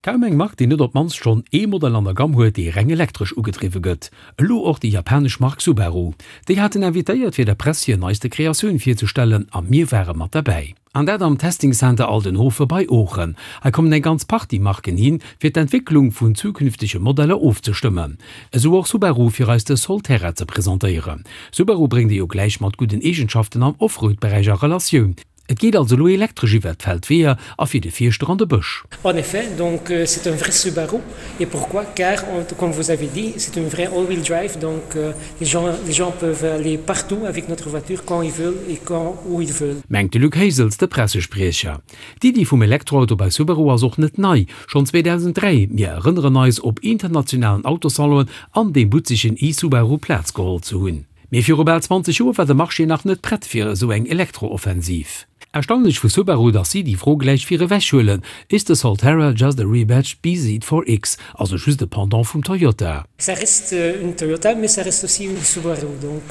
Kaum eng Mark, déi net op d'mannst schonn ee Modell an der Gamm huet, dee reng elektresch ugedriwwe gëtt. Elo och déi japanesch Mark Subaru. Déi haten invitéiert, fir der Press hir neiste Kreatioun virzestellen a mir ware mat derbäi. An dat am Testing Center Aldenhoven bei Oochen. Hei kommen eng ganz Partie Marken hin, fir d'Entwécklung vun zukünftege Modeller ofzestëmmen. Esou och Subaru, fir eis de Solterra ze presentéieren. Subaru bréngt ee jo gläich mat gudden Eegenschaften am Offroad-Beräich a Relatioun. Et geet also elo elektresch iwwert d'Feldweeër a fir de Fierschter an de Bësch. En effet, donc c'est un vrai Subaru et pourquoi? Car comme vous avez dit, c'est une vraie all-wheel drive donc les gens les gens peuvent aller partout avec notre voiture quand ils veulent et quand où ils veulent. Mengt de Luc Hesels, de Pressespriecher. D'Iddi vum Elektroauto bei Subaru ass och net nei. Schonn 2003, mir erënneren eis, op internationalen Autosalonen an deem butzegen e-Subaru Plaz geholl ze hunn. Mee viru bal 20 Joer war de Marché nach net prett fir esou eng Elektro-Offensiv. Erstaunlech vu Subaru, dass si déi Fro gläich vir ewech huelen, Is the Solterra just a rebadged bZ4X, also just e Pendant vum Toyota? Ça reste une Toyota, mais ça reste aussi une Subaru. Donc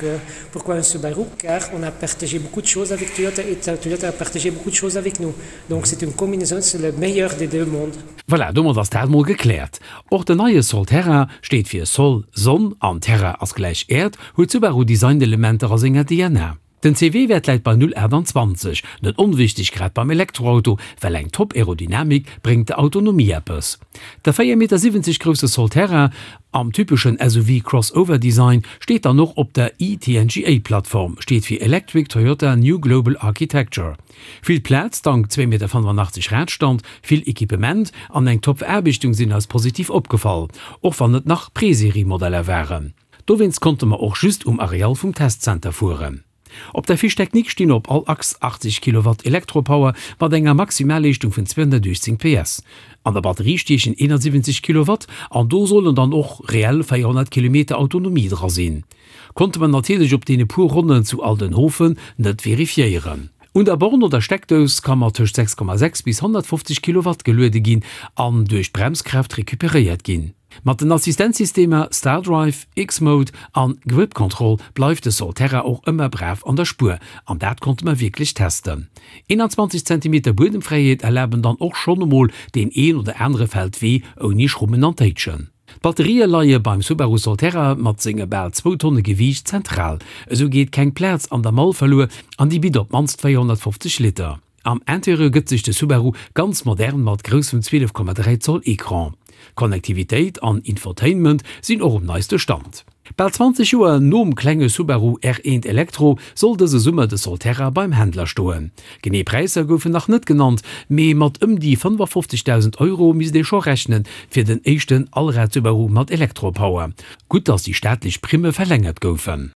pourquoi un Subaru? Car on a partagé beaucoup de choses avec Toyota et Toyota a partagé beaucoup de choses avec nous. Donc c'est une combinaison, c'est le meilleur des deux mondes. Voilà, domat ass dat mol gekläert. Och den neie Solterra steet fir Sol, Sonn, an Terra ass gläich Äerd, huet Subaru Designelementer a senger DNA. Den CW-Wäert läit bei 0,28, net onwichteg grad beim Elektroauto, well eng top Aerodynamik bréngt der Autonomie eppes. De 4,70 Meter grousse Solterra am typeschen SUV-Crossover-Design steet dann och op der e-TNGA-Plattform, steet fir Electric Toyota New Global Architecture. Vill Plaz dank 2,85 Meter Radstand, vill Equipement an eng top Veraarbechtung sinn eis positiv opgefall, och wann et nach Preserie-Modeller waren. Dowéinst konnte mer och just um Areal vum Testcenter fueren. Op der Fiche technique stinn op all Achs 80 Kilowatt Elektropower mat enger Maximalleeschtung vun 218 PS. An der Batterie stiechen 71 Kilowatt an do sollen dann och reell 400 Kilometer Autonomie dra sinn. Konnte mer natierlech op deene puer Ronnen zu Aldenhoven net verifiéieren. Un der Born oder Steckdous ka mat tëscht 6,6 bis 150 Kilowatt geluede ginn an duerch d'Bremskraaft recuperéiert ginn. Mat den Assistenzsystemer StarDrive, X-Mode an Grip Control bleift de Solterra och ëmmer brav an der Spuer an dat konnte mer wierklech testen. 21 Zentimeter Buedemfräiheet erlaben dann och schonn emol deen een oder anere Feldwee ouni Schrummen an Téitschen. D'Batterië leie beim Subaru Solterra mat senge bal zwou Tonne Gewiicht zentral. Esou geet keng Plaz an der Mall verluer an déi bitt op d'mannst 450 Liter. Am Interieur gëtt sech de Subaru ganz modern mat groussem 12,3 Zoll Ecran. Connectivitéit an Infotainment sinn och um neiste Stand. Bal 20 Joer nom klenge Subaru R1 Electro soll dëse Summer de Solterra beim Händler stoen. Genee Präisser goufen nach net genannt, mee mat ëm déi 55.000 Euro misst ee scho rechnen fir den éischten Allrad-Subaru mat Elektropower. Gutt, datt déi staatlech Primme verlängert goufen.